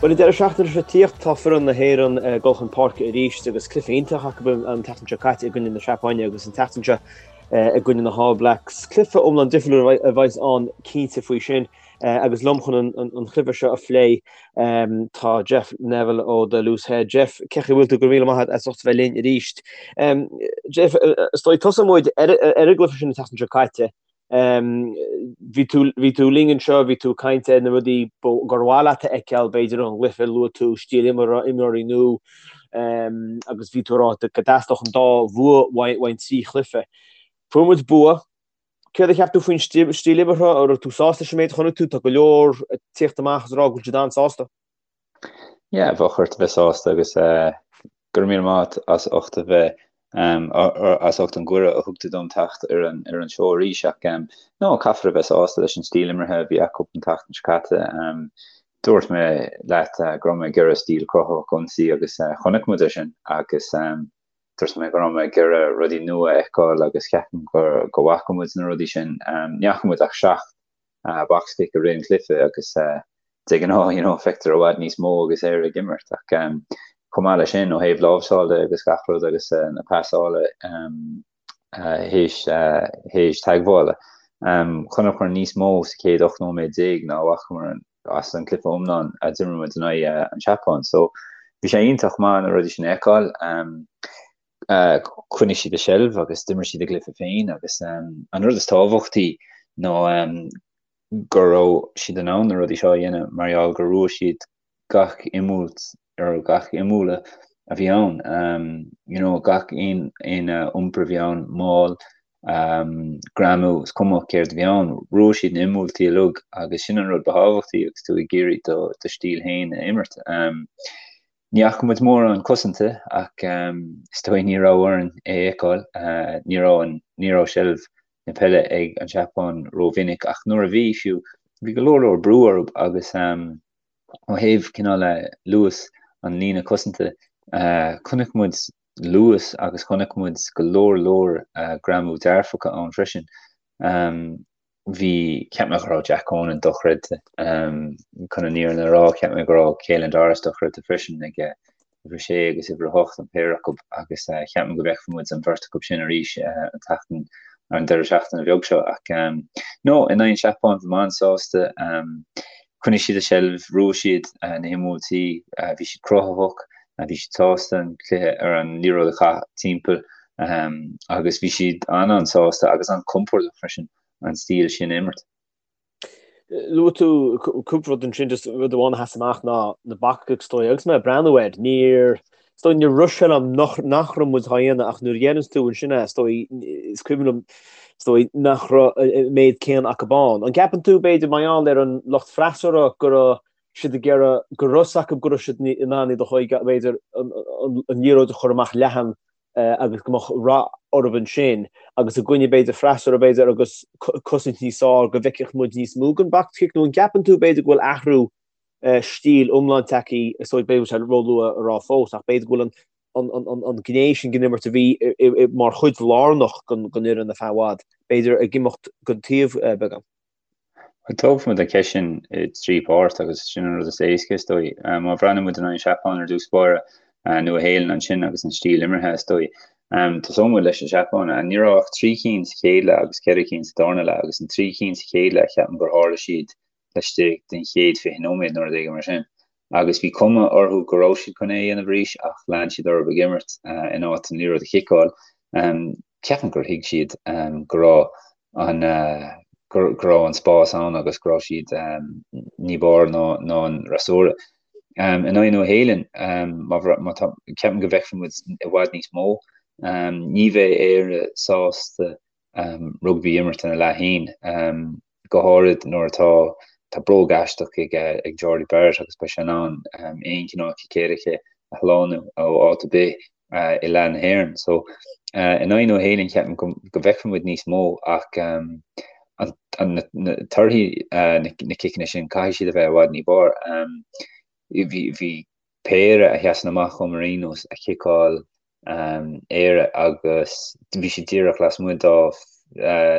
Bhuel, an deireadh seachtaine seo tíocht, tá foireann na hÉireann ag dul chun páirce arís agus cluiche iontach acu an tseachtain seo caite i gcoinne na Seapáine agus an tseachtain seo i gcoinne na hAll Blacks. Cluiche iomlán difriúil a bheas ann cinnte faoi sin agus liom chun an chluiche seo a phlé tá Jeff Neville ó The Loose Head. Jeff, cén chaoi a bhfuil tú? Go raibh míle maith agat as ucht a bheith linn arís. Jeff, is dóigh tosóidh muid ar an gcluiche sin an tseachtain seo caite. Bhí tú, bhí tú linn anseo, bhí tú ag caint ar na rudaí gur mhaith leat a fheiceáil, b'fhéidir ón gcluiche, luaigh tú stíl imeartha, imreoirí nua, agus bhí tú ag rá go dteastódh an dá bhua uainn trí chluiche. Fuair muid bua. Céard a cheap tú faoin stíl imeartha? An raibh tú sásta leis an méid a chonaic tú? Tá go leor ag tíocht amach is ag rá go bhfuil siad an-sásta. Yeah, bheadh ort a bheith sásta agus go raibh míle maith agat as ucht a bheith as ucht an gcuireadh a thug tú dom teacht ar an ar an seó arís ach no, caithfear a bheith sásta leis an stíl imeartha a bhí acu an tseachtain seo caite. Dúirt mé leat go raibh mé ag iarraidh stíl cruthaitheach ionsaí agus chonaic muid é sin agus dúirt mé go raibh mé ag iarraidh rudaí nua a fheiceáil agus ceapaim go go bhfaca muid na rudaí sin. Ní fhaca muid ach 7 box kick i rith an chluiche agus de ghnáth you know feictear i bhfad níos mó agus Éire ag imirt ach chomh maith leis sin ó thaobh láimhseáil de agus gach rud agus na pasála théis théis teagmhála chonaiceamar níos mó sa chéad 18 nóiméad ná a bhfacamar as an cluiche iomlán a d'imir muid in aghaidh an tSeapáin so bhí sé iontach maith na rudaí sin a fheiceáil. Choinnigh siad a seilbh agus d'imir siad a gcluiche féin agus an rud is tábhachtaí ná go raibh siad in ann na rudaí seo a dhéanamh mar gheall gur bhuaigh siad gach imbhuailt ar gach imbhualadh a bhí ann. You know, gach aon aon iompar a bhí ann, maul, greamú, is cuma céard a bhí ann, bhuaigh siad na himbhuailtí uilig agus sin an rud ba thábhachtaí agus tú ag iarraidh do do stíl féin a imirt. Ní fhaca muid mórán cosanta ach is dóigh ní raibh orainn é a fheiceáil. Ní raibh an, ní raibh seilbh na peile ag an Seapáin rómhinic ach nuair a bhí, fiú, bhí go leor leor brú orthu agus ó thaobh cineál luas an líne cosanta, chonaic muid luas agus chonaic muid go leor leor greamú dearfacha ann freisin. Bhí, cheap mé go raibh Jack Conan dochreidte. Chun an fhírinne a rá, cheap mé go raibh Caelan Doris dochreidte freisin ag uimhir a sé agus uimhir a hocht, an péire acu, agus cheap mé go bhfeicfidh muid an bheirt acu sin arís an tseachtain, an deireadh seachtaine bheag seo. Ach no, in aghaidh an Seapáin, bhí mé an-sásta. Choinnigh siad a seilbh, bhuaigh siad na himbhuailtí, bhí siad cruthaitheach, bhí siad sásta an cluiche ar an liathróid a chaitheamh timpeall. Agus bhí siad an-an-sásta agus an-compordach freisin an stíl sin a imirt. Luaigh tú cúpla rud ansin, just rud amháin a sheas amach ná na box kicks is dóigh. Agus mé ag breathnú air, níor, is dóigh, níor rith sé liom nach, nach raibh muid á dhéanamh ach nuair a dhéananns tú ansin é, is dóigh, is cuimhin liom, is dóigh, nach raibh an méid céanna acu ann. An gceapann tú, b'fhéidir, mar gheall ar an lucht freasúra go raibh siad ag iarraidh, go raibh fhios acu go raibh siad in ann iad a chur, b'fhéidir, an liathróid a chur amach leathan agus go mbeadh rath orthu ansin agus i gcoinne b'fhéidir freasúra b'fhéidir agus cosaint níos fearr go bhfeicfeadh muid níos mó den box kick nó an gceapann tú b'fhéidir go bhfuil athrú stíl iomlán tagtha is dóigh b'fhéidir sé róluath a rá fós ach b'fhéidir go bhfuil an an an gné sin den imirt a bhí mar chuid lárnach den fhoireann ar feadh i bhfad b'fhéidir ag imeacht go taobh beagán. Tógfaidh muid an cheist sin i dtrí pháirt agus sin an rud is éasca is dóigh. Má bhreathnaíonn muid in aghaidh an Seapáin ar dtús báire, Nua-Shéalainn ansin agus an stíl imeartha is dóigh. Tosóidh muid leis an Seapáin. Ní raibh ach trí cinn sa chéad leath agus ceithre cinn sa darna leath agus an trí cinn sa chéad leath ceapaim gur tharla siad laistigh den chéad 20 nóiméad nó rud éigin mar sin. Agus bhí cuma orthu go raibh siad chun é a dhéanamh arís ach lean siad orthu ag imirt in áit an liathróid a chiceáil. Ceapaim gur thuig siad go raibh an go raibh an spás ann agus go raibh siad ní b'fhearr ná an fhreasúra. In aghaidh Nua-Shéalainn, má tá, ceapaim go bhfeicfidh muid i bhfad níos mó. Ní bheidh Éire sásta rugbaí a imirt ina leath féin, go háirid nuair atá tá bróg aisteach ag ag Jordie Barrett agus beidh sé in ann aon chineál cic éirice a shlánú ó áit ar bith i leath na hÉireann. So in aghaidh Nua-Shéalainn ceapaim go go bhfeicfidh muid níos mó ach an na torthaí na ciceanna sin caithfidh siad a bheith i bhfad ní b'fhearr. Bhí bhí péire a sheasann amach dhom ar aon nós a chiceáil Éire agus bhí siad díreach lasmuigh dá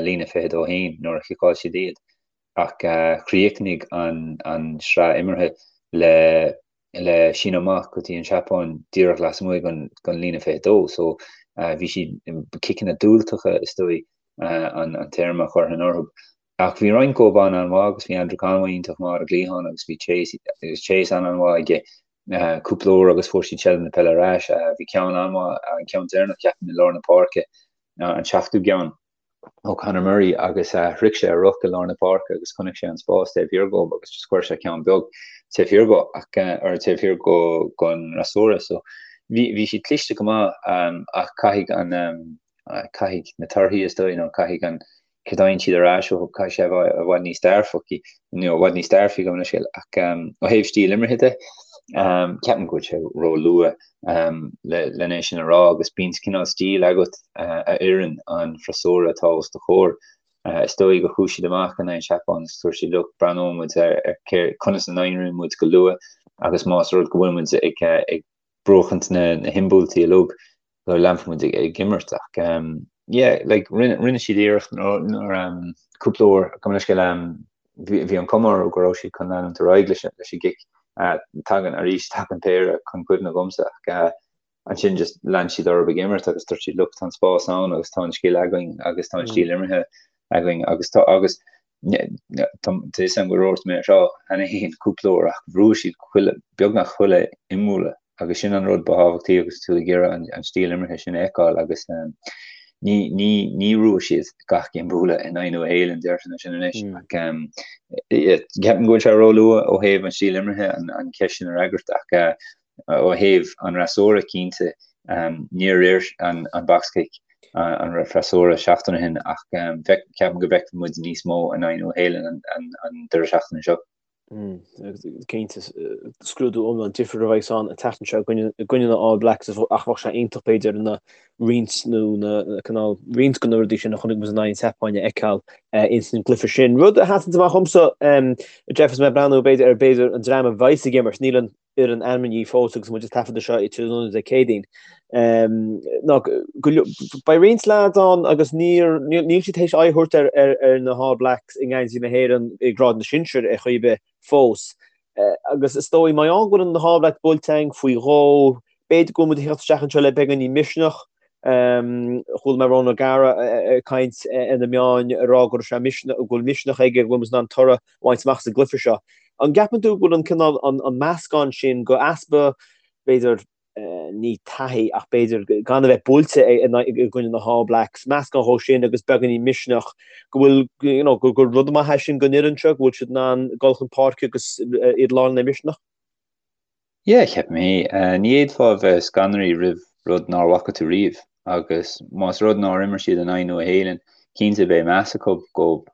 líne 22 féin nuair a chiceáil siad iad ach chríochnaigh an an sraith imeartha le. le síneadh amach go dtí an Seapáin díreach lasmuigh den líne 22 so bhí siad ciceanna diúltacha is dóigh an téarma a chuirfinn orthu. Ach bhí roinnt dhóibh an-an-mhaith agus bhí Andrew Conway iontach maith ar an gcliathán agus bhí Chase agus Chase an-an-mhaith aige cúpla uair agus fuair siad seilbh na peile ar ais. Bhí ceann an-mhaith, an ceann deireanach ceapaim i lár na páirce, an seachtú gceann ó Conor Murray agus shroich sé a ruc i lár na páirce agus chonaic sé an spás taobh thiar dhó agus just chuir sé ceann beag taobh thiar dhó ach or taobh thiar go gon fhreasúra. So bhí bhí siad cliste go maith ach caithfidh an caithfidh na torthaí is dóigh nó caithfidh an céard a fhaigheann siad ar ais uathu, caithfidh sé a bheith i bhfad níos dearfaí, nó i bhfad níos dearfaí gabh mo leithscéal, ach ó thaobh stíl imeartha de, ceapaim go bhfuil sé róluath len é sin a rá agus bíonn cineál stíl agat a oireann an freasúra atá os do chomhair. Is dóigh gur chuaigh siad amach in aghaidh an Seapáin agus dúirt siad look, breathnóidh muid ar conas a n-éiríonn muid go luath agus más rud go bhfuil muid ag buachaint na himbhuailtí uilig, go leanfaidh muid ag imirt ach yeah like rinne rinne siad iarracht nuair cúpla uair gabh mo leithscéal bhí an cuma orthu go raibh siad chun leanúint ar aghaidh leis leis an gcic tagann arís tagann péire chun cuimhne dhomsa ach ansin just lean siad orthu ag imirt agus dúirt siad look tá an spás ann agus tá an scil againn agus tá an stíl imeartha againn agus tá agus tá a fhios agam go ndúirt mé seo cheana féin cúpla uair ach bhuaigh siad chuile, beagnach chuile imbhualadh agus sin an rud ba thábhachtaí agus tú ag iarraidh an stíl imeartha sin a fheiceáil agus ní, ní, ní bhuaigh siad gach imbhualadh in aghaidh Nua Shéalainn, déarfainn sin anois ach ceapaim go bhfuil sé róluath ó thaobh an stíl imeartha an cheist sin a fhreagairt ach Ó thaobh an fhreasúra, cinnte, níor oir an box kick an freasúra seachtain ó shin ach ceapaim go bhfeicfidh muid níos mó in aghaidh Nua Shéalainn an deireadh seachtaine seo. Cinnte, scrúdú iomlán difriúil a bheidh ann an tseachtain seo i gcoinne na All Blacks ach bheadh sé iontach b'fhéidir na roinnt nó na cineál roinnt de na rudaí sin a chonaic muid in aghaidh an tSeapáin a fheiceáil ins an gcluiche sin. Rud a sheasann amach dhomsa, Jeff, is mé ag breathnú b'fhéidir ar b'fhéidir an dream a bheidhs ag imirt, níl an fhoireann ainmnithe fós agus muid ag taifeadadh seo tráthnóna Dé Céadaoin. Ná beidh roinnt leaids ann agus níor níl siad théis aghaidh a thabhairt ar ar ar na hAll Blacks i ngeansaí na hÉireann i ngrád na sinsear ar chaoi ar bith fós. Agus is dóigh mar gheall go bhfuil na hAll Blacks buailte againn faoi dhó, b'fhéidir go bhfuil muid ag theacht isteach anseo le beagáinín misneach. Chuala mé Ronan O'Gara ag caint ar na meáin ag rá go raibh sé misneach, go bhfuil misneach aige go bhfuil muid in ann toradh a bhaint amach sa gcluiche seo. An gceapann tú go bhfuil an cineál, an meascán sin go easpa, b'fhéidir, ní taithí ach b'fhéidir gan a bheith buailte i gcoinne na hAll Blacks, meascán dhó sin agus beagáinín misneach, go bhfuil, you know, gur rud maith é sin don fhoireann seo, go bhfuil siad in ann dul chun páirce agus iad lán le misneach? Yeah, ceapaim é. Ní fhéadfá a bheith scanraithe roimh rud nár bhfaca tú riamh agus más rud nár imir siad in aghaidh Nua Shéalainn, cinnte beidh meas acu dhóibh.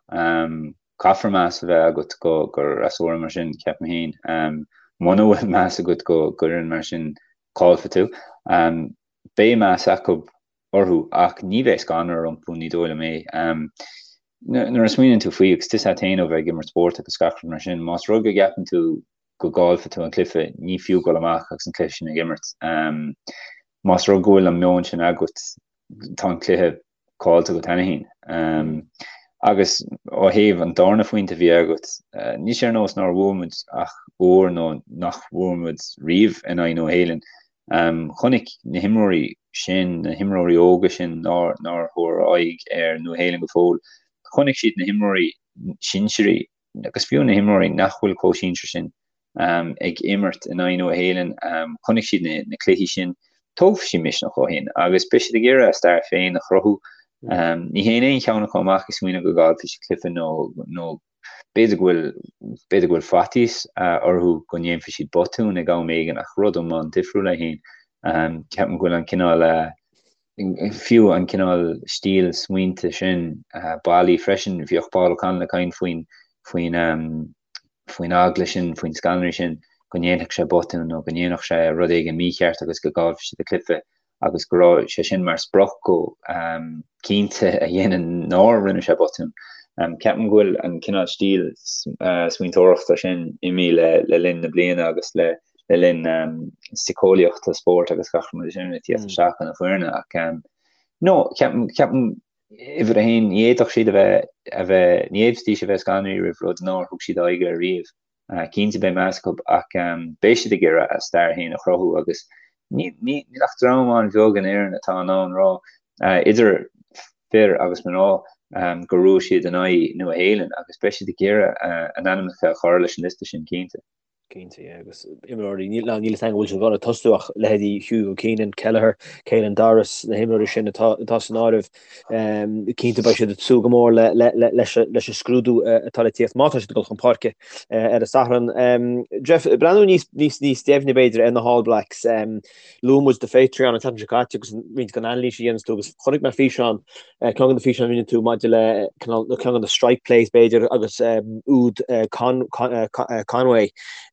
Caithfear meas a bheith agat go fhreasúra mar sin, ceapaim féin. Muna bhfuil meas agat go fhoireann mar sin, caillfidh tú. Beidh meas acu orthu ach ní bheidh scanradh rompu, ní dóigh liom é. Nuair a smaoiníonn tú faoi, agus tá a fhios agat féin ó bheith ag imirt spóirt agus gach rud mar sin, más rud go gceapann tú go gcaillfidh tú an cluiche, ní fiú dul amach agus an cluiche sin ag imirt. Más rud go bhfuil an meon sin agat, tá an cluiche caillte agat cheana féin. Agus ó thaobh an darna phointe a bhí agat, níl sé ar nós nár bhuaigh muid ach uair nó nach bhfuair muid riamh in aghaidh Nua Shéalainn. Chonaic na himreoirí sin, na himreoirí óga sin nár nár thabhair aghaidh ar Nua Shéalainn go fóill, chonaic siad na himreoirí sinsearaí agus fiú na himreoirí nach bhfuil chomh sinsear sin ag imirt in aghaidh Nua Shéalainn, chonaic siad na cluichí sin, tógfaidh siad misneach ó shin agus beidh siad ag iarraidh a stair féin a chruthú. Ní théann aon cheann acu amach ag smaoineamh go gcaillfidh siad cluiche nó nó b'fhéidir go bhfuil b'fhéidir go bhfuil faitíos orthu go ndéanfaidh siad botún ag am éigin ach rud iomlán difriúil é féin. Ceapaim go bhfuil an cineál fiú an cineál stíl smaointe sin bailí freisin. Bhíodh Paul O'Connell ag caint faoin faoin faoin eagla sin, faoin scanradh sin go ndéanfadh sé botún nó go ndéanfadh sé rud éigin mícheart agus go gcaillfeadh siad an cluiche agus go raibh sé sin mar sprioc dhó cinnte a dhéanamh nár rinne sé botún. Ceapaim go bhfuil an cineál stíl smaointeoireachta sin imithe le linn na bliana agus le le linn síceolaíochta spóirt agus gach rud mar sin ag tíocht isteach chun na foirne ach no ceapaim ceapaim uimhir a haon ní fhéadfadh siad a bheith a bheith ní fhéadfaidís a bheith scanraithe roimh rud nár thug siad aghaidh air riamh. Cinnte beidh meas acu ach beidh siad ag iarraidh a stair féin a chruthú agus níl ach dream an-bheag in Éirinn atá in ann rá, idir fir agus mná, gur bhuaigh siad in aghaidh Nua Shéalainn agus beidh siad ag iarraidh a n-ainmneacha a chur leis an liosta sin cinnte. Cinnte, yeah, agus imreoirí, níl a fhios agam an bhfuil siad ag dul ag tosú ach leithéidí Hugo Keenan, Kelleher, Caelan Doris, na himreoirí sin atá atá san áireamh, cinnte beidh siad ag súil go mór leis an scrúdú atá le tíocht má tá siad ag dul chun páirce ar an Satharn. Jeff, breathnú níos níos níos deimhne b'fhéidir ar na hAll Blacks. Luaigh muid do Patreon an tseachtain seo caite agus roinnt den anailís a dhéananns tú agus chonaic mé físeán ceann de na físeáin a rinne tú maidir le ceann de na strike plays b'fhéidir agus úd Conway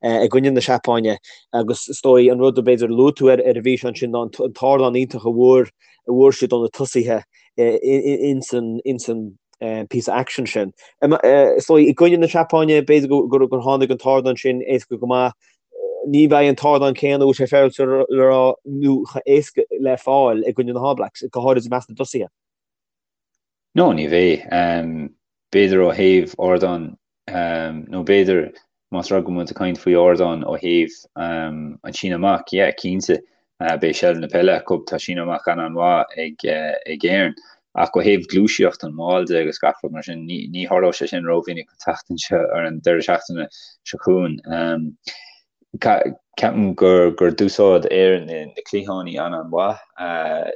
i gcoinne na Seapáine agus is dóigh an rud a b'fhéidir luaigh tú ar an bhfíseán sin ná an t-ardán iontach a bhfuair a bhfuair siad ó na tosaithe ins an ins an píosa action sin. Is dóigh i gcoinne na Seapáine b'fhéidir gur tháinig an t-ardán sin éasca go maith. Ní bheidh an t-ardán céanna, bhfuil sé féaráilte le rá, nó chomh héasca le fáil i gcoinne na hAll Blacks, go háirid i measc na dtosaithe. No, ní bheidh. B'fhéidir ó thaobh ardán, nó b'fhéidir más rud go bhfuil muid ag caint faoi ardán ó thaobh an síneadh amach, yeah, cinnte, beidh seilbh na peile acu, tá síneadh amach an-an-mhaith ag Éirinn. Ach ó thaobh gluaiseacht an mháil de agus gach rud mar sin, ní tharlóidh sé sin rómhinic an tseachtain seo, ar an deireadh seachtaine seo chugainn. Ceapaim gur gur d'úsáid Éirinn na cliathánaí an-an-mhaith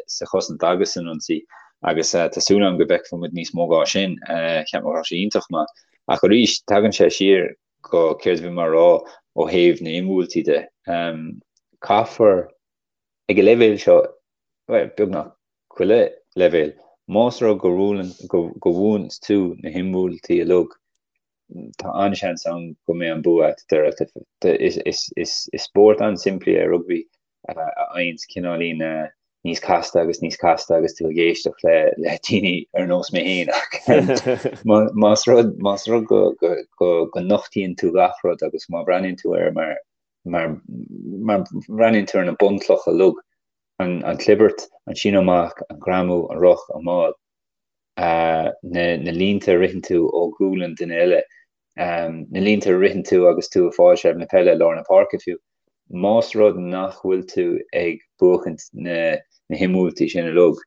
sa chosaint agus san ionsaí agus tá súil agam go bhfeicfidh muid níos mó dhá sin. Ceapaim go raibh sé iontach maith. Ach arís, tagann sé siar go céard a bhí mé a rá ó thaobh na himbhuailtí de. Caithfear ag an leibhéal seo, bhuel, beagnach chuile leibhéal, más rud go bhuaileann, go bhuann tú na himbhuailtí uilig, tá an-seans ann go mbeidh an bua agat deireadh cluiche. Is spórt an-simplí é rugbaí a fhaigheanns cineáilín níos casta agus níos casta agus tú ag éisteacht le le daoine ar nós mé féin ach más rud más rud go go go go nochtaíonn tú gach rud agus má bhreathnaíonn tú air mar mar mar bhreathnaíonn tú ar na bunchlocha uilig an chlibirt, an síneadh amach, an greamú, an ruc, an máil, na línte a ritheann tú ó ghualainn duine eile, na línte a ritheann tú agus tú ag fáil seilbh na peile i lár na páirce fiú. Más rud nach bhfuil tú ag buachaint na himbhuailtí sin uilig,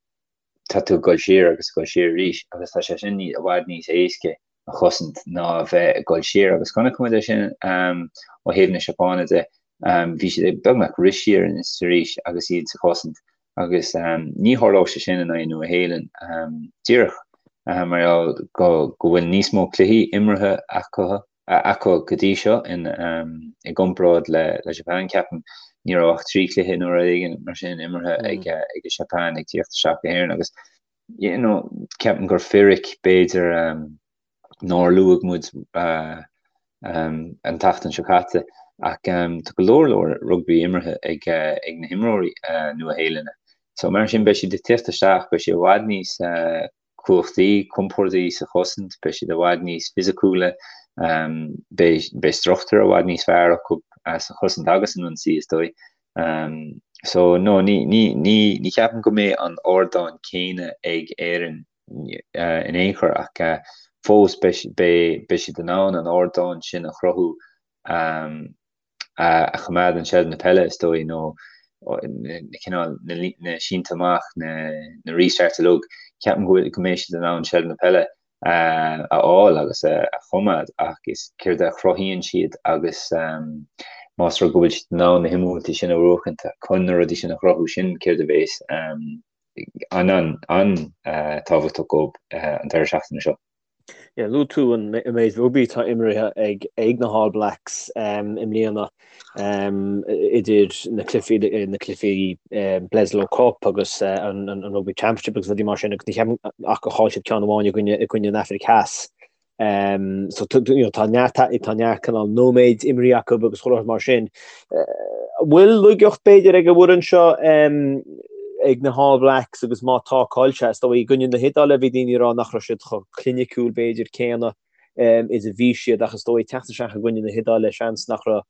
tá tú ag dul siar agus ag dul siar arís agus tá sé sin i bhfad níos éasca a chosaint ná a bheith ag dul siar agus chonaic muid é sin ó thaobh na Seapáine de. Bhí siad ag beagnach rith siar is arís agus iad sa chosaint agus ní tharlódh sé sin in aghaidh Nua Shéalainn díreach mar gheall go bhfuil níos mó cluichí imeartha acu acu go dtí seo in i gcomparáid le le Japan ceapaim ní raibh ach 3 chluiche nó rud éigin mar sin imeartha ag ag an Seapáin ag tíocht isteach go hÉirinn agus you know ceapaim gur fíric b'fhéidir nár luaigh muid an tseachtain seo caite ach tá go leor leor rugbaí imeartha ag ag na himreoirí Nua Shéalainne so mar sin beidh siad ag tíocht isteach beidh siad i bhfad níos cumhachtaí, compordaí sa chosaint, beidh siad i bhfad níos fisiciúla, beidh beidh struchtúr i bhfad níos fearr acu sa chosaint agus san ionsaí is dóigh. So no, ní ní ní ní cheapaim go mbeidh an ardán céanna ag Éirinn in aon chor ach fós beidh beidh beidh siad in ann an ardán sin a chruthú a choimeádann seilbh na peile, is dóigh, nó na cineál, na sínte amach, na restarts uilig, ceapaim go bhfuil, go mbeidh siad in ann seilbh na peile a fháil agus a choimeád ach is céard a chruthaíonn siad agus más rud go bhfuil siad in ann na himbhuailtí sin a bhuachaint chun na rudaí sin a chruthú, sin céard a bheas an-tábhachtach dóibh an deireadh seachtaine seo. Yeah, luaigh tú an méid rugbaí atá imeartha ag ag na hAll Blacks i mbliana idir na cluichí na cluichí Bledisloe Cup agus an an Rugby Championship agus rudaí mar sin agus ní cheapaim ach gur chaill siad ceann amháin i gcoinne i gcoinne an Afraic Theas. So you know, tá neart tá neart cineál nóiméid imeartha acu agus chuile shórt mar sin. An bhfuil laigeacht b'fhéidir ag an bhfoireann seo ag na hAll Blacks agus má tá cá bhfuil sé, is dóigh i gcoinne na hIodáile bhí daoine ag rá nach raibh siad chomh cliniciúil b'fhéidir céanna is a bhí siad ach is dóigh teacht isteach i gcoinne na hIodáile seans nach raibh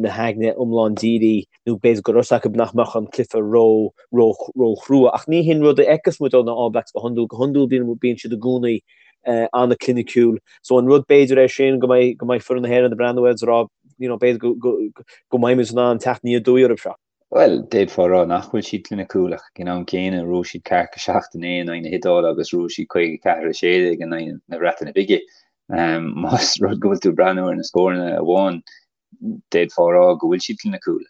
na haigne iomlán dírithe nó b'fhéidir go raibh a fhios acu nach mbeadh an cluiche ró ró ró chrua ach ní hin rud a fheiceas muid ó na All Blacks go hiondúil, go hiondúil bíonn bíonn siad i gcónaí. An-chliniciúil. So an rud b'fhéidir é sin go mbeidh go mbeidh foireann na hÉireann ag breathnú air is ag rá you know b'fhéidir go go go mbeidh muid in ann teacht aniar aduaidh orthu seo. Bhuel, d'fhéadfá a rá nach bhfuil siad cliniciúil ach ag an am céanna bhuaigh siad ceathracha 7 a 9 in aghaidh na hIodáile agus bhuaigh siad 54 16 in aghaidh na Breataine Bige. Más rud go bhfuil tú ag breathnú ar na scóranna amháin, d'fhéadfá a rá go bhfuil siad cliniciúil.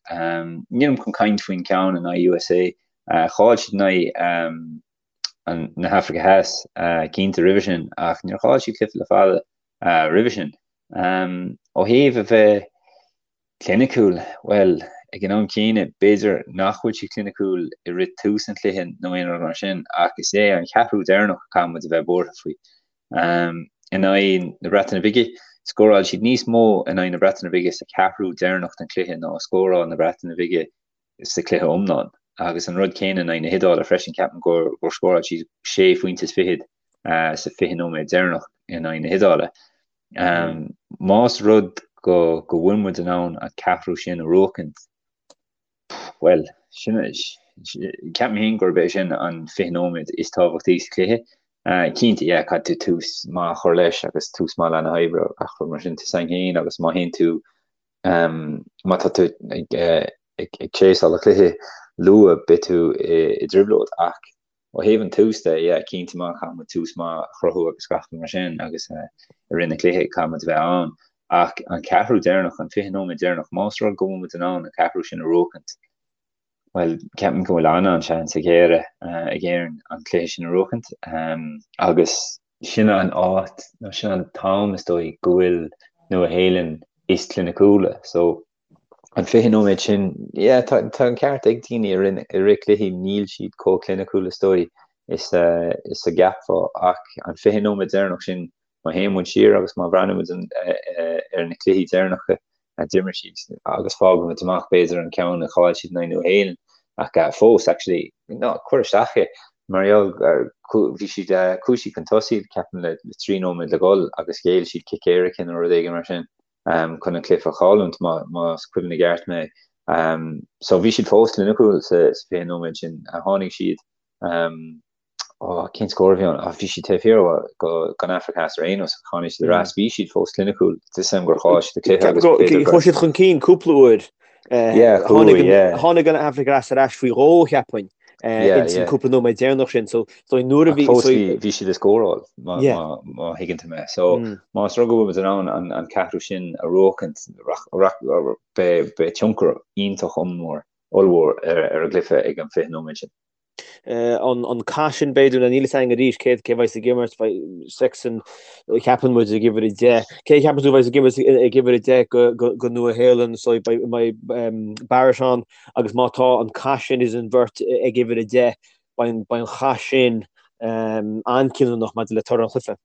Nílim chun caint faoin ceann in aghaidh USA. Chaill siad in aghaidh na hAfraice Theas cinnte roimhe sin ach níor chaill siad cluiche le fada roimhe sin. Ó thaobh a bheith cliniciúil, bhuel, ag an am céanna, b'fhéidir nach bhfuil siad cliniciúil i rith tús an chluiche nó aon rud mar sin ach is é an ceathrú deireanach a caithfidh muid a bheith buartha faoi. In aghaidh na Breataine Bige, scóráil siad níos mó in aghaidh na Breataine Bige sa cheathrú deireanach den chluiche ná a scóráil na Breataine Bige sa chluiche iomlán. Agus an rud céanna in aghaidh na hIodáile freisin, ceapaim gur scóráil siad sé phointe is fichead sa 20 nóiméad deireanach in aghaidh na hIodáile. Más rud go go bhfuil muid in ann an ceathrú sin a bhuachaint, bhuel, sin, ceapaim féin gurb é sin an 20 nóiméad is tábhachtaí sa chluiche. Cinnte, yeah, caithfidh tú tús maith a chur leis agus tús maith leath na hoibre a chur mar sin, tá a fhios againn féin agus má théann tú Má tá tú ag chaseáil an chluiche luath, beidh tú i dtrioblóid. Ach ó thaobh an tús de, yeah, cinnte má caithfidh muid tús maith a chruthú agus gach rud mar sin agus i rith na cluiche caithfidh muid a bheith ann. Ach an ceathrú deireanach, an 20 nóiméad deireanach, más rud go bhfuil muid in ann an ceathrú sin a bhuachaint, bhuel, ceapaim go bhfuil an-an-seans ag Éire, ag Éirinn an cluiche sin a bhuachaint agus sin an áit, nó sin an t-am is dóigh go bhfuil Nua Shéalainn is cliniciúla. So, an 20 nóiméad sin, yeah, tá, tá an ceart ag daoine i rith, i rith cluichí, níl siad chomh cliniciúil is dóigh is, is a gceapfá ach an 20 nóiméad deireanach sin, má théann muid siar agus má bhreathnaíonn muid ar na cluichí deireanacha a d'imir siad agus fágann muid amach b'fhéidir an ceann a chaill siad in aghaidh Nua Shéalainn ach fós actually ná cuir isteach é mar gheall bhí siad chuaigh siad chun tosaigh ceapaim le 3 nóiméad le dhul agus ghéill siad cic éirice nó rud éigin mar sin chun an cluiche a chailliúint más cuimhin i gceart mé. So bhí siad fós cliniciúil sa 20 nóiméad sin tháinig siad Ó, cén scór a bhí ann? Bhí siad taobh thiar den Afraic Theas ar aon nós, ach tháinig siad ar ais. Bhí siad fós cliniciúil. Tá a fhios agam gur chaill siad an cluiche agus b'fhéidir gur. Chuaigh siad chun cinn cúpla uair. Yeah, chuaigh, yeah. Tháinig an Afraic Theas ar ais faoi dhó, cheapfainn, ins an cúpla nóiméad deireanach sin. So, so nuair a bhí. Fós bhí siad ag scóráil, má thuigeann tú mé. So, más rud go bhfuil muid in ann an ceathrú sin a bhuachaint, beidh tionchar iontach ollmhór ar an gcluiche ag an 20 nóiméad sin. An cath sin b'fhéidir, nó níl a fhios againn arís cé cé bheidh ag imirt, beidh Sexton ceapann muid ag uimhir 10. Cé a cheapann tú bheidh ag imirt ag uimhir 10 go go go Nua Shéalainn so beidh beidh Barrett ann agus má tá an cath sin idir an bheirt ag uimhir 10 beidh an beidh an chath sin an-chinniúnach maidir le toradh an chluiche.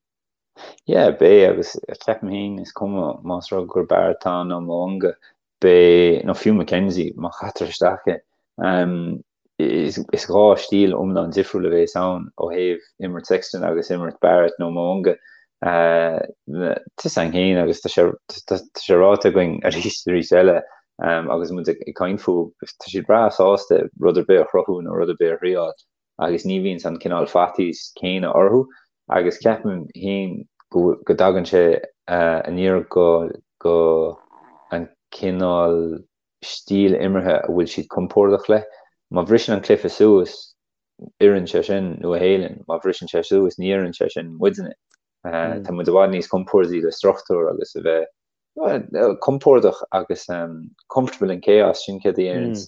Yeah, beidh agus ceapaim féin is cuma más rud gur Barrett atá ann nó Mo'unga, beidh, nó fiú McKenzie, má chaitear isteach é. Is dhá stíl iomlán difriúil a bhéas ann ó thaobh imirt Sexton agus imirt Barrett nó Mo'unga. Tá fhios againn féin agus tá sé tá sé ráite againn arís is arís eile agus muid ag caint fúthu, tá siad breá sásta rud ar bith a chruthú nó rud ar bith a thriáil. agus ní bhíonns an cineál faitíos céanna orthu agus ceapaim féin go go dtagann sé aniar go go an cineál stíl imeartha a bhfuil siad compordach le. Má bhriseann an cluiche suas, oireann sé sin Nua Shéalainn, má bhriseann sé suas, ní oireann sé sin muidne. Tá muid i bhfad níos compordaí le struchtúr agus a bheith compordach agus comfortable in chaos, sin céard a deireanns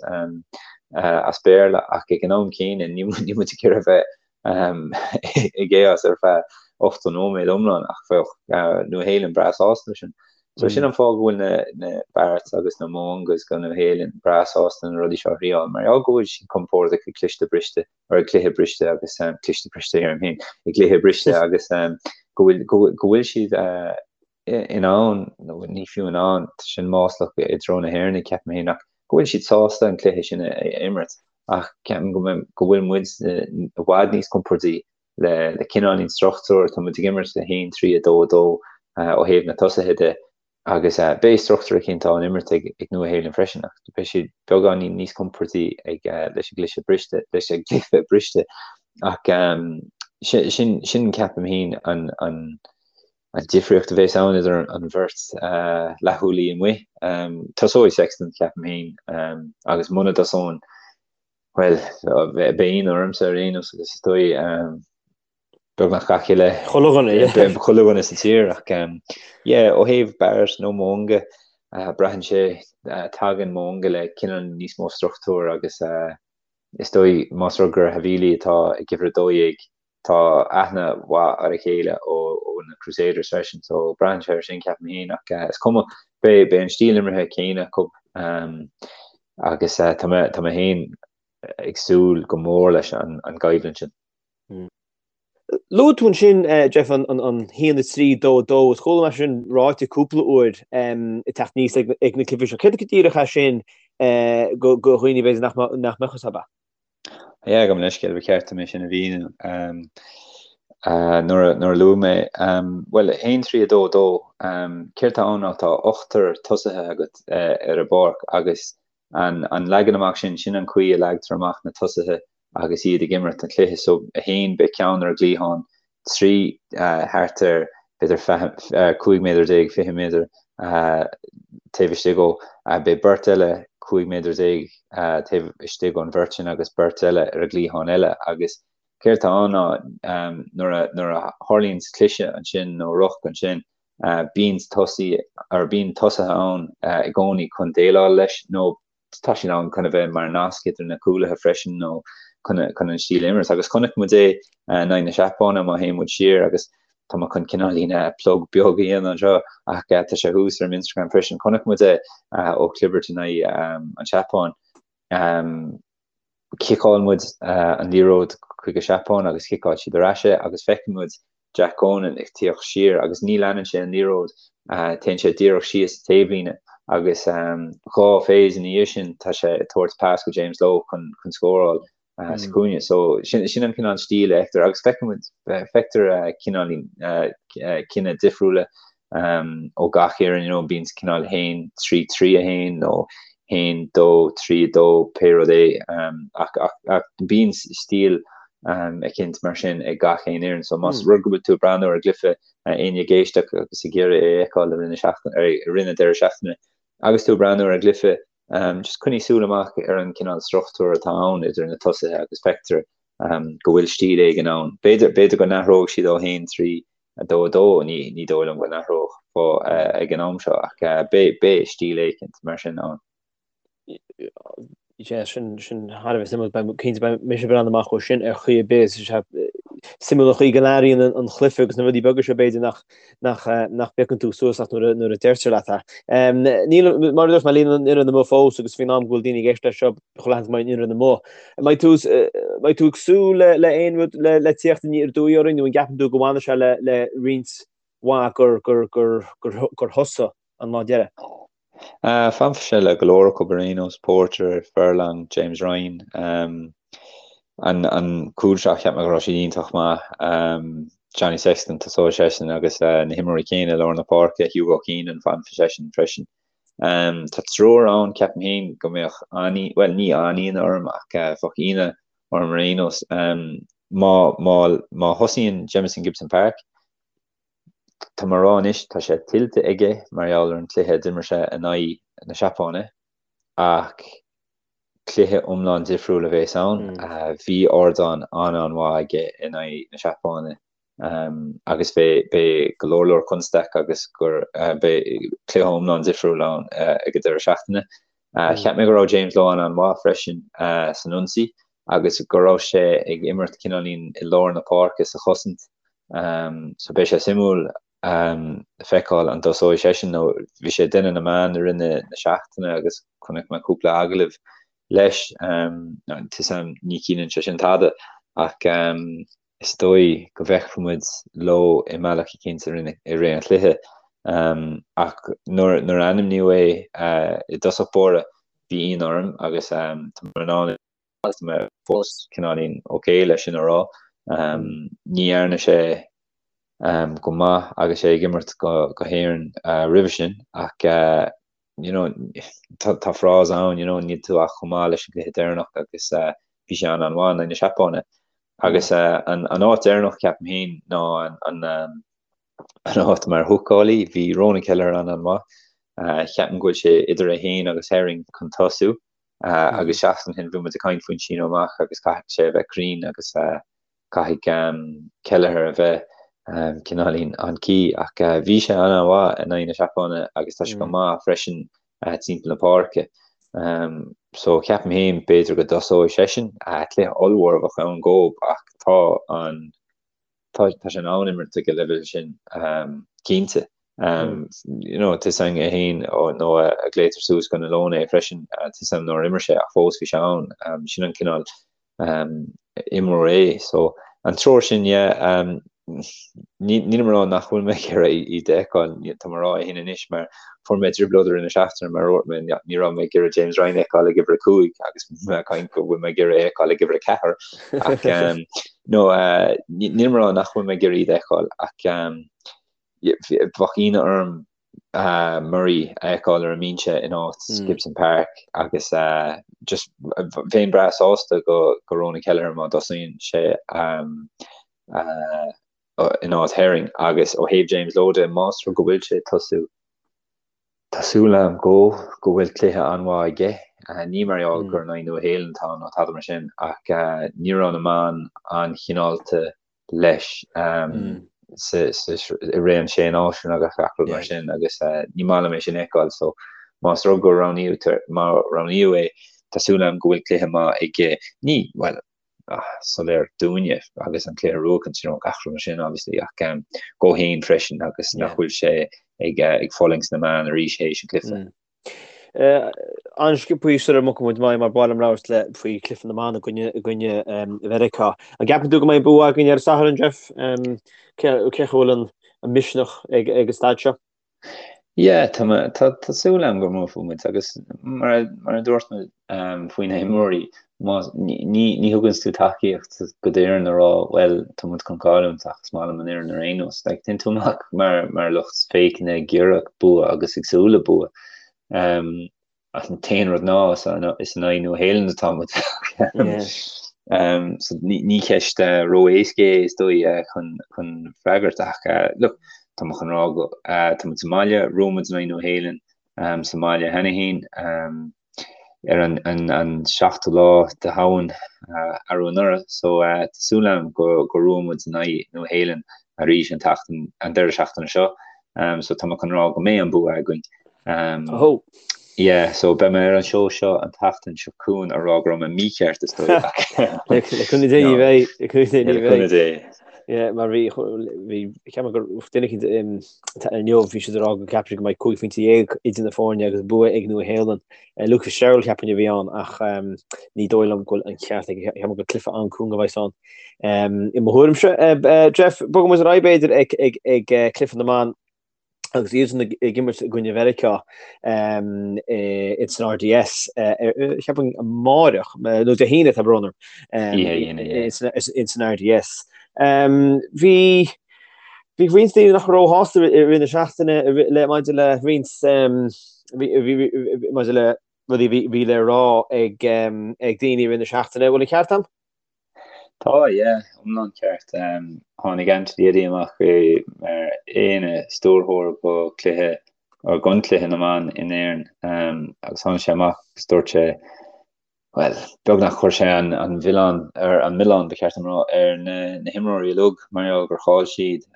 as Béarla, ach ag an am céanna níl muid ag iarraidh a bheith i gchaos ar feadh 80 nóiméad iomlán ach bheadh Nua Shéalainn breá sásta leis sin. So sin an fáth go bhfuil na na Barretts agus na Mo'ungas go Nua Shéalainn breá sásta na rudaí seo a thriáil mar gheall go bhfuil siad compordach ag cliste briste or ag cluiche briste agus cliste briste deirim féin ag cluiche briste agus go bhfuil go bhfuil siad in ann, nó ní fiú in ann, tá sin maslach i dtreo na hÉireann, ceapaim féin, ach go bhfuil siad sásta an cluiche sin a imirt. Ach ceapaim go go bhfuil muid i bhfad níos compordaí le le cineáilín struchtúr, tá muid ag imirt le 1, 3, 2, 2 ó thaobh na tosaithe de agus beidh struchtúr eicínt á n-imirt ag ag Nua Shéalainn freisin ach beidh siad beagáinín níos compordaí ag leis an gcluiche briste, leis an gcluiche briste. Ach. Sin, sin ceapaim féin an, an, an difríocht a bheas ann idir an bheirt leathchúlaí amuigh. Tosóidh Sexton, ceapaim féin, agus muna dtosónn, bhuel, beidh ionadh ormsa ar aon nós agus is dóigh beagnach gach uile Chuile dhuine, yeah. chuile dhuine sa tír ach yeah, ó thaobh Barrett nó Mo'unga, braitheann sé, tagann Mo'unga le cineál níos mó struchtúir agus is dóigh más rud gur Havili atá ag uimhir 12, tá aithne mhaith ar a chéile ó na Crusaders freisin so braitheann sé ar sin ceapaim féin ach is cuma, beidh an stíl imeartha céanna acu agus tá mé tá mé féin ag súil go mór leis an gcoimhlint sin. Luaigh tú ansin, Jeff, an 1, 3, 2, 2. Is chuala mé sin ráite cúpla uair ag teacht aníos ag na cluichí seo. Céard go díreach é sin do dhaoine b'fhéidir nach mbeadh fhios acu? Yeah, gabh mo leithscéal, ba cheart dom é sin a mhíniú nuair a luaigh mé. Bhuel, 1, 3, 2, 2, céard atá ann ná tá ochtar tosaithe agat ar an bpáirc agus an leagan amach sin, sin an chaoi a leagtar amach na tosaithe agus iad ag imirt an chluiche. So, 1, beidh ceann ar an gcliathán, 3, thart ar b'fhéidir 15 méadar, 20 méadar taobh istigh dhó. Beidh beirt eile 15 méadar taobh istigh ón bheirt sin agus beirt eile ar an gcliathán eile. Agus céard atá ann ná nuair a nuair a tharlaíonn cliseadh ansin nó ruc ansin, bíonn tosaí or bíonn tosaithe ann i gcónaí chun déileáil leis nó tá siad ann chun a bheith mar nasc idir na cúlaithe freisin nó chun chun an stíl imirt. Agus chonaic muid é in aghaidh na Seapáine má théann muid siar agus tá mé chun cineáilín plug beag a dhéanamh anseo ach tá sé thuas ar m'Instagram freisin. Chonaic muid é ó chlibirt in aghaidh an tSeapáin. Chiceáil muid an liathróid chuig an Seapáin agus chiceáil siad ar ais é agus feiceann muid Jack Conan ag tíocht siar agus ní leanann sé an liathróid, téann sé díreach síos an taobhlíne agus dhá phase ina dhiaidh sin tá sé ag tabhairt pas go James Lowe chun chun scóráil sa chúinne. So sin sin an cineál stíl a fheictear agus feiceann muid feictear cineáilín cine difriúla ó gach fhoireann, you know, bíonn cineál 1, 3, 3, 1 nó 1, 2, 3, 2, pé rud é, ach, ach, ach bíonn stíl eicínt mar sin ag gach aon fhoireann. So más rud go bhfuil tú ag breathnú ar an gcluiche, éinne ag éisteacht agus ag iarraidh é a fheiceáil i rith na seachtaine, i rith na deireadh seachtaine, agus tú ag breathnú ar an gcluiche, just coinnigh súil amach ar an cineál struchtúr atá ann idir na tosaithe agus feictear go bhfuil stíl éigin ann. B'fhéidir, b'fhéidir go n-athróidh siad ó 1, 3, 2, 2, ní dóigh liom go n-athródh ag an am seo ach beidh stíl éicint mar sin ann. Yeah, sin sin thar a bheith suimiúil. Beidh cinnte beidh mise ag breathnú amach dó sin ar chaoi ar bith. Is é suimiúil an chaoi go n-athraíonn an chluiche agus na rudaí beaga seo b'fhéidir nach nach nach bpiocann tú suas ach nuair a nuair a deirtear leat é. Níl mar a dúirt mé níl an fhoireann amuigh fós agus faoin am go bhfuil daoine ag éisteacht leis seo chuile sheans go mbeidh an fhoireann amuigh. An mbeidh tú mbeidh tú ag súil le le aon rud le le tíocht aniar aduaidh orainn nó an gceapann tú go bhfanfaidh sé le le roinnt mhaith gur gur gur gur gur thosaigh an lá deiridh? Fanfaidh sé le go leor acu ar aon nós, Porter, Furlong, James Ryan. An an cúl seo cheap mé go raibh siad iontach maith. Johnny Sexton tosóidh seisean agus na himreoirí céanna i lár na páirce, Hugo Keenan fanfaidh seisean freisin. Tá triúr ann, ceapaim féin, go mbeadh an, bhuel, ní an-ionadh orm ach bheadh ionadh orm ar aon nós. Má, má, má thosaíonn Jamison Gibson-Park, tá mé ag rá anois, tá sé tuillte aige mar gheall ar an cluiche a d'imir sé in aghaidh na Seapáine ach cluiche iomlán difriúil a bhéas ann. Bhí ardán an-an-mhaith aige in aghaidh na Seapáine. agus beidh go leor leor constaic agus gur beidh cluiche iomlán difriúil ann ag an deireadh seachtaine. Cheap mé go raibh James Lowe an-an-mhaith freisin san ionsaí agus go raibh sé ag imirt cineáilín i lár na páirce sa chosaint so beidh sé suimiúil feiceáil an dtosóidh seisean nó bhí sé ag déanamh na meán i rith na seachtaine agus chonaic mé cúpla agallamh leis. Tá 'fhios a'm ní chiallaíonn sé sin tada ach is dóigh go bhfeicfidh muid Lowe i mbealach eicínt i rith an chluiche. Ach nuair a ainmníodh é i dtosach báire, bhí ionadh orm agus tá mé in ann agus tá mé fós cineáilín ok leis sin a rá. Ní dhearna sé go maith agus é ag imirt go hÉirinn roimhe sin ach you know tá frása ann you know níl tú ach chomh maith leis an gcluiche deireanach agus bhí sé an-an-mhaith in aghaidh na Seapáine. Agus an áit deireanach, ceapaim féin, ná an áit mar húcálaí. Bhí Ronan Kelleher an-an-mhaith. Ceapaim go bhfuil sé idir é féin agus Herring chun tosú. Agus seachtain ó shin bhí muid ag caint faoin síneadh amach agus caithfidh sé a bheith cruinn agus caithfidh Kelleher a bheith cineáilín on key. Ach bhí sé an-an-mhaith in aghaidh na Seapáine agus tá sé go maith freisin timpeall na páirce. So ceapaim féin b'fhéidir go dtosóidh seisean. Cluiche ollmhór a bheadh ann dhób ach tá an tá tá sé in ann imirt ag an leibhéal sin cinnte. You know, tá a fhios againn é féin nó a glaotar suas go na Leoin é freisin, tá a fhios agam nár imir sé ach fós bhí sé ann. Sin an cineál imreoir é. So an triúr sin, yeah, nílim ag rá nach bhfuil mé ag iarraidh iad a fheiceáil, tá mé ag rá é sin anois mar fuair mé trioblóid i rith na seachtaine mar a dúirt mé, ní raibh mé ag iarraidh James Ryan a fheiceáil ag uimhir a 5 agus mé ag caint go bhfuil mé ag iarraidh é a fheiceáil ag uimhir a 4 ach no, nílim ag rá nach bhfuil mé ag iarraidh iad a fheiceáil ach bheadh ionadh orm Murray a fheiceáil ar an mbinse in áit Gibson Park agus just bheinn breá sásta go go Ronan Kelleher má dtosaíonn sé in áit Herring agus ó thaobh James Lowe de más rud go bhfuil sé ag tosú tá súil agam go go bhfuil cluiche an-mhaith aige. Ní mar gheall gur in aghaidh Nua Shéalainn atá nó tada mar sin ach ní raibh na meáin an-chineálta leis i rith an Sé Náisiún agus gach rud mar sin agus ní maith liom é sin a fheiceáil so más rud go roghnaíodh má roghnaíodh é tá súil agam go bhfuil cluiche maith aige ní bhuel soiléir dúinne agus an cluiche a bhuachan you know gach rud mar sin obviously ach dhó féin freisin agus nach bhfuil sé ag ag fulaingt sna meáin arís théis an cluiche. An-sciobthaí sula mbogfaidh muid amach mar ba mhaith liom labhairt le faoi chluiche na mban i gcoinne i gcoinne Mheiriceá. An gceapann tú go mbeidh bua againn ar an Satharn, Jeff? Cé cé chomh bhfuil an an misneach ag ag an staid seo? Yeah, tá mé tá tá súil agam go mbuafaidh muid agus mar a mar a dúirt mé faoi na himreoirí má ní ní ní thugann tú tacaíocht go d'fhoireann a rá bhuel tá muid chun cailliúint ach is maith liom an fhoireann ar aon nós. Like téann tú amach mar mar lucht féachana ag iarraidh bua agus ag súil le bua. Um, ach an t-aon rud ná is is in aghaidh Nua Shéalainn atá muid. Yeah. Um, so ní ní ceist uh, ró-éasca é is dóigh uh, chun chun freagairt ach uh, look, tá mé chun rá go uh, tá muid sa mbaile, bhuaigh muid in aghaidh Nua Shéalainn um, sa mbaile cheana féin. Um, ar an an an seachtú lá de Shamhain arú anuraidh so tá súil agam go go mbuafaidh muid in aghaidh Nua Shéalainn arís an tseachtain an deireadh seachtaine seo so tá mé chun rá go mbeidh an bua againn. Um, oh. Yeah, so beidh mé ar an seó seo an tseachtain seo chugainn a rá go raibh mé mícheart is dóigh. Le cúnamh Dé ní bheidh, le cúnamh Dé ní bheidh. Yeah, mar bhí bhí ceapaim gur duine eicínt inniu bhí siad ag rá go gceapann siad go mbeidh 15 phointe idir na foirne agus bua ag Nua Shéalainn. Luke Fitzgerald cheapfainn a bhí ann ach ní dóigh liom go bhfuil an ceart aige ceapaim gur cluiche an-cúng a bheas ann. I mo thuairimse, Jeff, bogfaidh muid ar aghaidh b'fhéidir ag ag ag cluiche na mban agus iadsan ag imirt i gcoinne Mheiriceá ins an RDS cheapfainn amáireach nó Dé hAoine tá brón orm ins an RDS. Bhí bhí roinnt daoine nach raibh róshásta i rith na seachtaine le maidir le roinnt maidir le rudaí a bhí le rá ag ag daoine i rith na seachtaine. Bhfuil an ceart agam? Tá, yeah, iomlán ceart. Tháinig Anthony Eddy amach mar ina stiúrthóir go cluiche, or don cluiche na mban in Éirinn agus tháinig sé amach agus dúirt sé, bhuel, beagnach chuir sé an an mhilleán, ar an milleán ba cheart dom rá, ar na na himreoirí uilig mar gheall gur chaill siad.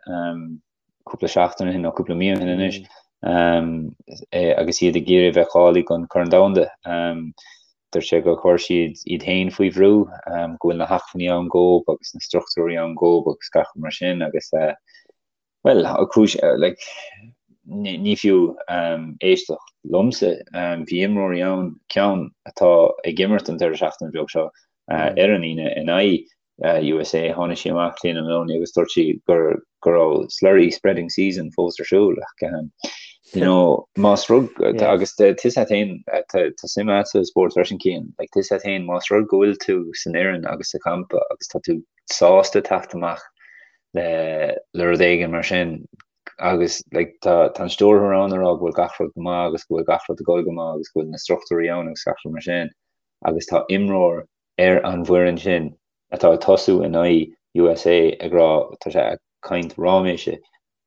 cúpla seachtain ó shin nó cúpla mí ó shin anois agus iad ag iarraidh bheith cáilithe don Chorn Domhanda. Dúirt sé gur chuir siad iad féin faoi bhrú, go bhfuil na hacmhainní ann dhóibh agus na struchtúirí ann dhóibh agus gach rud mar sin agus bhuel, cúis like ní fiú éisteacht liomsa, bhí imreoirí ann, ceann atá ag imirt an deireadh seachtaine beag seo ar an Aoine in aghaidh USA, tháinig sí amach, Clíona Moloney, agus dúirt sí gur go raibh slurry spreading season fós ar siúl ach you know, más rud agus tá a fhios agat féin tá suim agat sa spórt freisin Cian, like tá a fhios agat féin más rud go bhfuil tú san fhoireann agus sa champa agus tá tú sásta teacht amach le le rud éigin mar sin agus like tá tá an stiúrthóir ann ag rá go bhfuil gach rud go maith agus go bhfuil gach rud ag dul go maith agus go bhfuil na struchtúirí ann agus gach rud mar sin agus tá imreoir ar an bhfoireann sin. atá ag tosú in aghaidh USA ag rá tá sé ag caint ráiméise.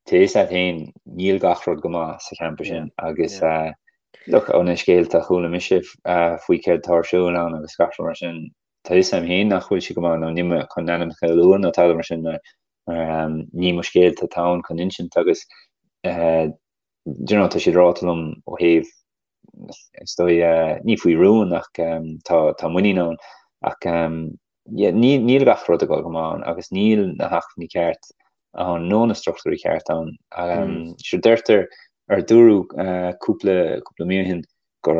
Tá fhios agat féin níl gach rud go maith sa champa sin agus look ó na scéalta a chuala mise faoi céard atá ar siúl ann agus gach rud mar sin, tá fhios agam féin nach bhfuil sé go maith nó níl mé chun ainmneacha a lua nó tada mar sin mar ní mo scéalta atá ann chun insint agus do you know tá siad ráite liom ó thaobh is dóigh ní faoi rún ach tá tá muinín ann ach yeah ní níl gach rud ag dul go maith ann agus níl na hacmhainní ceart ann nó na struchtúirí ceart ann. Sure deirtear ar dúradh cúpla cúpla mí ó shin gur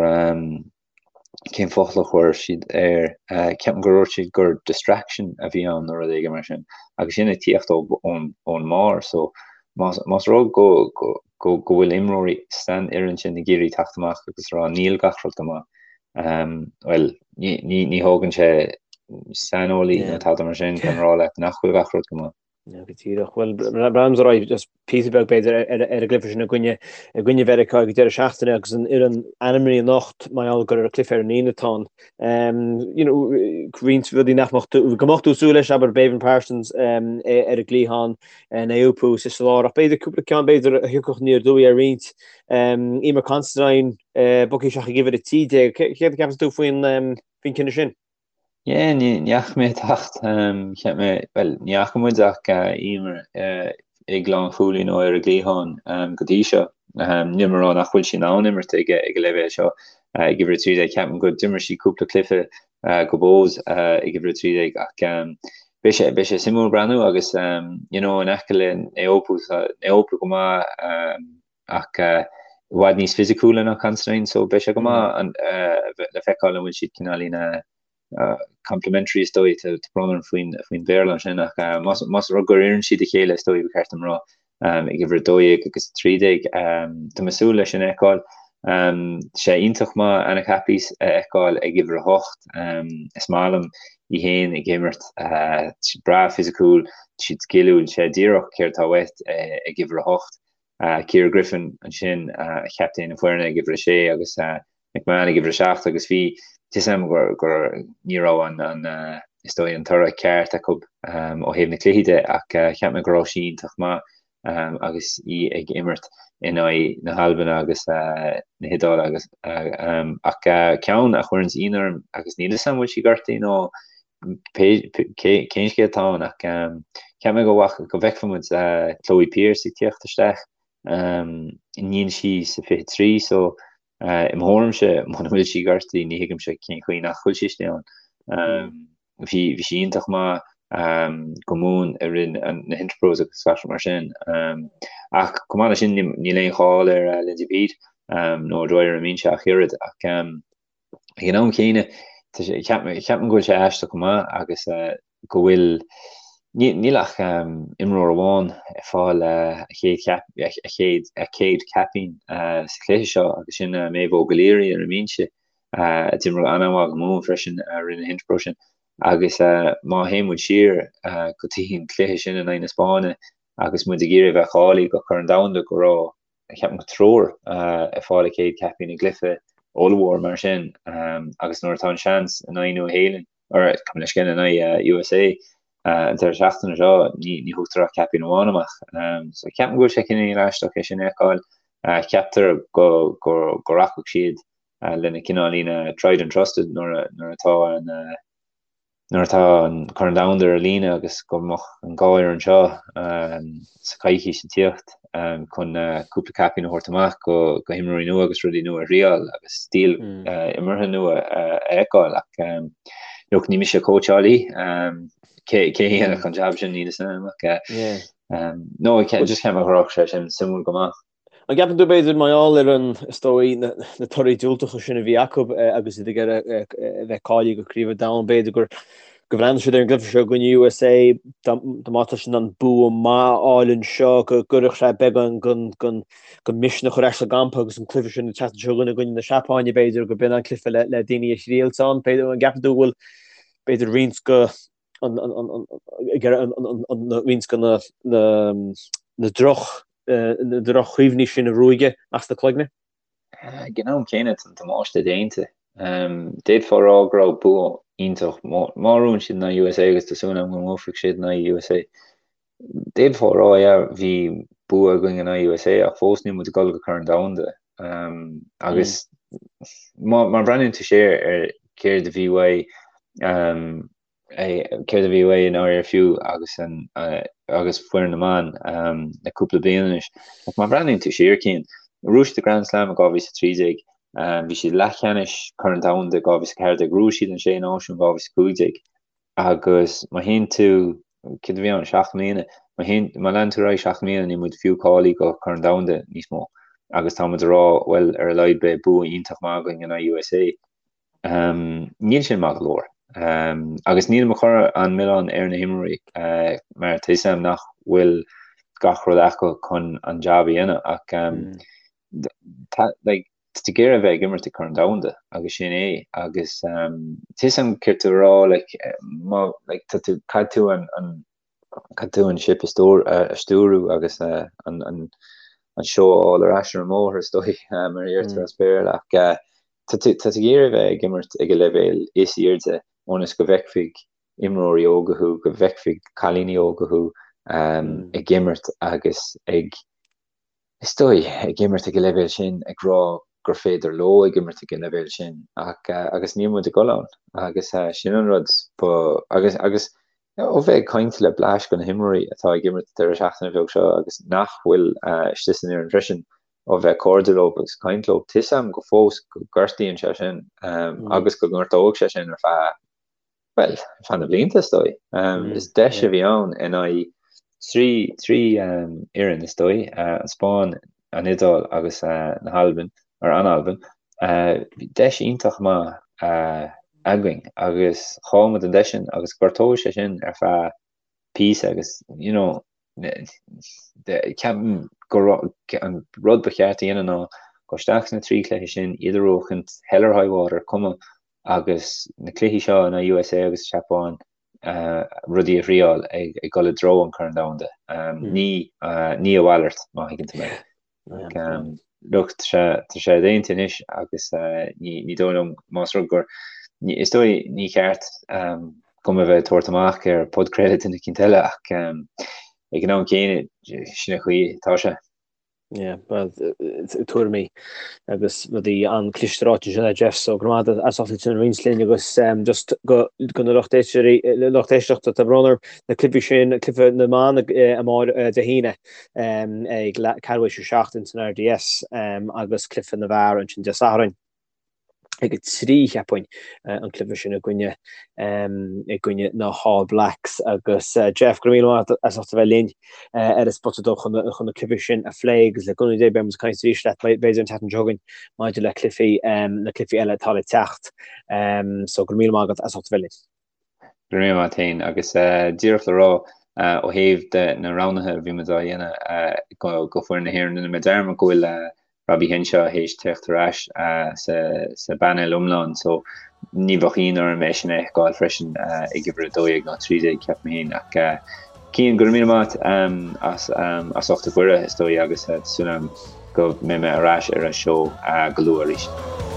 cén focal a chuir siad air, ceapaim gur dhúirt siad gur distraction a bhí ann nó rud éigin mar sin, agus sin ag tíocht ón mbarr so más rud go go bhfuil imreoirí san fhoireann sin ag iarraidh teacht amach agus rá níl gach rud go maith, bhuel ní thógann sé saineolaí nó tada mar sin chun rá leat nach bhfuil gach rud go maith. Go díreach. Bhuel, breathnaímis ar aghaidh just píosa beag b'fhéidir ar an gcluiche sin i gcoinne i gcoinne Mheiriceá ag an deireadh seachtaine agus an fhoireann ainmnithe anocht mar gheall gur ar cluiche ar an Aoine atá ann. You know, roinnt rudaí nach mbeadh tú go mbeadh tú ag súil leis abair Béibhinn Parsons ar an gcliathán Naoupu sa lár ach b'fhéidir cúpla ceann b'fhéidir a thiocfadh aniar aduaidh ar roinnt. Eimear Considine bogtha isteach ag uimhir 13. Céard a cheapann tú faoin faoin cinneadh sin? Yeah, ní fhaca mé teacht, cheap mé, bhuel, ní fhaca muid ach Eimear ag lánchúlaí nó ar an gcliathán go dtí seo. Níl mé ag rá nach bhfuil sí in ann imirt ag an leibhéal seo ag uimhir 13. Ceapaim go d'imir sí cúpla cluiche do Bohs ag uimhir 13 ach beidh sé, beidh sé suimiúil breathnú agus you know, in aice le Naoupu, tá Naoupu go maith ach i bhfad níos fisiciúla ná Considine so beidh sé go maith le feiceáil an bhfuil siad cineáilín complementary is dóigh, tá brón orm faoin faoin Bhéarla ansin ach más más rud gur oireann siad a chéile is dóigh ba cheart dom rá ag uimhir 12 agus 13. Tá mé ag súil leis sin a fheiceáil. Tá sé iontach maith Anna Caplice a fheiceáil ag uimhir 8. Is maith liom í féin ag imirt, tá sí breá fisiciúil, tá sí sciliúil, sé díreach céard atá uait ag uimhir 8. Ciara Griffin ansin, captaen na foirne ag uimhir 6 agus McMahon ag uimhir 7 agus bhí fhios agam gur gur ní raibh an an is dóigh an toradh ceart acu ó thaobh na cluichí de ach cheap mé go raibh sí iontach maith agus í ag imirt in aghaidh na hAlban agus na hIodáile agus ach ceann a chuireanns ionadh orm agus níl fhios agam bhfuil sí gortaithe nó cén scéal atá ann ach cheap mé go go bhfeicfeadh muid Chloe Pearse ag tíocht isteach. Níl sí sa 23 so i mo thuairimse muna bhfuil sí gortaithe ní thuigimse cén chaoi nach bhfuil sí istigh ann. Bhí bhí sí iontach maith go Mumhan i rith na hInterpros agus gach rud mar sin. Ach chomh maith leis sin níl aon cháil ar Lindsay Peat nó O'Dwyer i mbinse ach oiread ach Ag an am chéanna, ceapaim go bhfuil sé aisteach go maith agus go bhfuil, níl ach imreoir amháin ag fáil a chéad a céad caipín sa chluiche seo agus sin Méabh Óg O'Leary ar an mbinse, a d'imir an-mhaith go Mumhan freisin i rith na hInterpro sin. Agus má théann muid siar go dtí an cluiche sin in aghaidh na Spáinne agus muid ag iarraidh a bheith cáilithe go Corn Domhanda go raibh ceapaim go triúr ag fáil a chéad caipín i gcluiche ollmhór mar sin agus nuair atá an seans in aghaidh Nua Shéalainn, or gabh mo leithscéal in aghaidh USA an deireadh seachtaine seo, ní ní thugtar ach caipín amháin amach. So ceapaim go bhfuil sé cineál aisteach é sin a fheiceáil. Ceaptar go go go rachadh siad lena cineáilín tried and trusted nuair nuair atá an nuair atá an Corn Domhanda ar líne agus go mbeadh an dhá fhoireann seo sa choicís ag tíocht chun cúpla caipín a thabhairt amach go himreoirí nua agus rudaí nua a thriáil agus stíl imeartha nua a fheiceáil ach look ní mise cóitseálaí cé a dhéanfadh an jab sin níl fhios agam ach no just cheap mé go raibh sé sin suimiúil go maith. An gceapann tú, b'fhéidir, mar gheall ar an, is dóigh, na torthaí diúltacha sin a bhí acu agus iad ag iarraidh a bheith cáilithe go Craobh an Domhain, b'fhéidir gur go bhreathnaigh siad ar an gcluiche seo i gcoinne USA, dá mbeadh siad in ann bua maith a fháil anseo, go gcuirfeadh sé beagán den misneach ar ais sa gcampa agus an cluiche sin an tseachtain seo chugainn i gcoinne na Seapáine, b'fhéidir, go b'in an cluiche le daoine a thriailt ann. B'fhéidir, an gceapann tú go bhfuil, b'fhéidir, roinnt go roinnt de na droch na droch-chuimhní sin a ruaigeadh as na cloigne. Ag an am céanna, tá an damáiste déanta. D'fhéadfá a rá go raibh bua iontach. Má bhuann siad in aghaidh USA agus tá súil agam go mbuafaidh siad in aghaidh USA, d'fhéadfá a rá, yeah, bhí bua againn in aghaidh USA ach fós níl muid ag dul go Corn Domhanda. Agus má bhreathnaíonn tú siar ar céard a bhí uaidh, céard a bhí uaidh i ndáiríre fiú agus an agus foireann na mban le cúpla bliain anois. Ach má bhreathnaíonn tú siar, Cian, bhuaigh siad an Grand Slam i 2013, bhí siad leathcheannais Corn Domhanda i 2014, bhuaigh siad an Sé Náisiún 2015 agus má théann tú, céard a bhí ann, seacht mbliana, má théann, má leanann tú ar aghaidh seacht mbliana níl muid fiú cáilithe go Corn Domhanda níos mó agus tá muid ag rá bhuel ar a laghad beidh bua iontach maith againn in aghaidh USA. Níl sin maith go leor. Agus nílim ag cur an milleán ar na himreoirí mar tá 'fhios a'm nach bhfuil gach rud acu chun an jab a dhéanamh ach tá like tá tú ag iarraidh a bheith ag imirt ag Corn Domhanda agus sin é agus tá 'fhios a'm céard tá tú a rá like má like tá tú caithfidh tú an an Caithfidh tú an ship a stiúradh agus an seó a fháil ar ais ar an mbóthar, is dóigh, mar a deirtear as Béarla. Ach tá tú ag iarraidh a bheith ag imirt ag an leibhéal is airde ionas go bhfeicfidh imreoirí óga thú, go bhfeicfidh cailíní óga thú ag imirt agus ag is dóigh, ag imirt ag an leibhéal sin, ag rá gur féidir leo ag imirt ag an leibhéal sin, ach, agus níl muid ag dul ann, agus sin an rud ba, agus, agus ó bheith ag caint le bleaist de na himreoirí atá ag imirt an deireadh seachtaine bheag seo agus nach bhfuil istigh san fhoireann freisin, ó bheith cairdiúil leo agus caint leo, tá 'fhios a'm go fós go gortaíonn sé sin, agus go ngortóidh sé sin ar feadh bhuel, ar feadh na blianta, is dóigh. Is deis a bhí ann in aghaidh trí fhoireann, is dóigh, an Spáinn, an Iodáil agus na hAlbain, or an Albain. Bhí deis iontach maith againn agus chaill muid an deis sin agus gortóidh sé sin ar feadh píosa agus, you know, ceapaim go an rud ba cheart a dhéanamh ná dul isteach sna trí chluiche sin, iad a bhuachaint, hell or high water, cuma agus na cluichí seo in aghaidh USA agus Seapáin rudaí a thriáil ag dul i dtreo an Chorn Domhanda. Ní ní a mhalairt, má thuigeann tú mé. Look, tá sé déanta anois agus ní dóigh liom más rud gur is dóigh ní ceart dom a bheith ag tabhairt amach ar podchraoladh duine eicínt eile ach ag an am céanna sin an chaoi atá sé. Yeah, well, tuairimí agus rudaí an-chliste ráite ansin ag Jeff, so go raibh maith agat as ucht sin a roinnt linn agus just go go na lucht éisteoirí, lucht éisteachta, tá brón orm, na cluichí sin, cluiche na mban amárach Dé hAoine ag ceathrú théis 7 ins an RDS agus cluiche na bhfear ansin Dé Sathairn. ag a 3, cheapfainn, an cluiche sin i gcoinne i gcoinne na hAll Blacks agus Jeff, go raibh míle maith agat as ucht a bheith linn ar an Spota Dubh chun chun na cluichí sin a phlé agus le cúnamh Dé beidh muid ag caint arís leat b'fhéidir an tseachtain seo chugainn maidir le cluichí na cluichí eile atá le teacht. So go raibh míle maith agat as ucht a bheith linn. Go raibh míle maith agat féin agus díreach le rá ó thaobh de na roghnaithe a bhí muid á dhéanamh go foireann na hÉireann, rinne mé dearmad go bhfuil Robbie Henshaw théis teacht ar ais sa bpainéal iomlán so ní bheadh ionadh orm é sin a fheiceáil freisin ag uimhir 12 nó 13 ceapaim féin ach Cian, go raibh míle maith as as ucht an cuireadh is dóigh agus tá súil agam go mbeidh mé ar ais ar an seó go luath arís.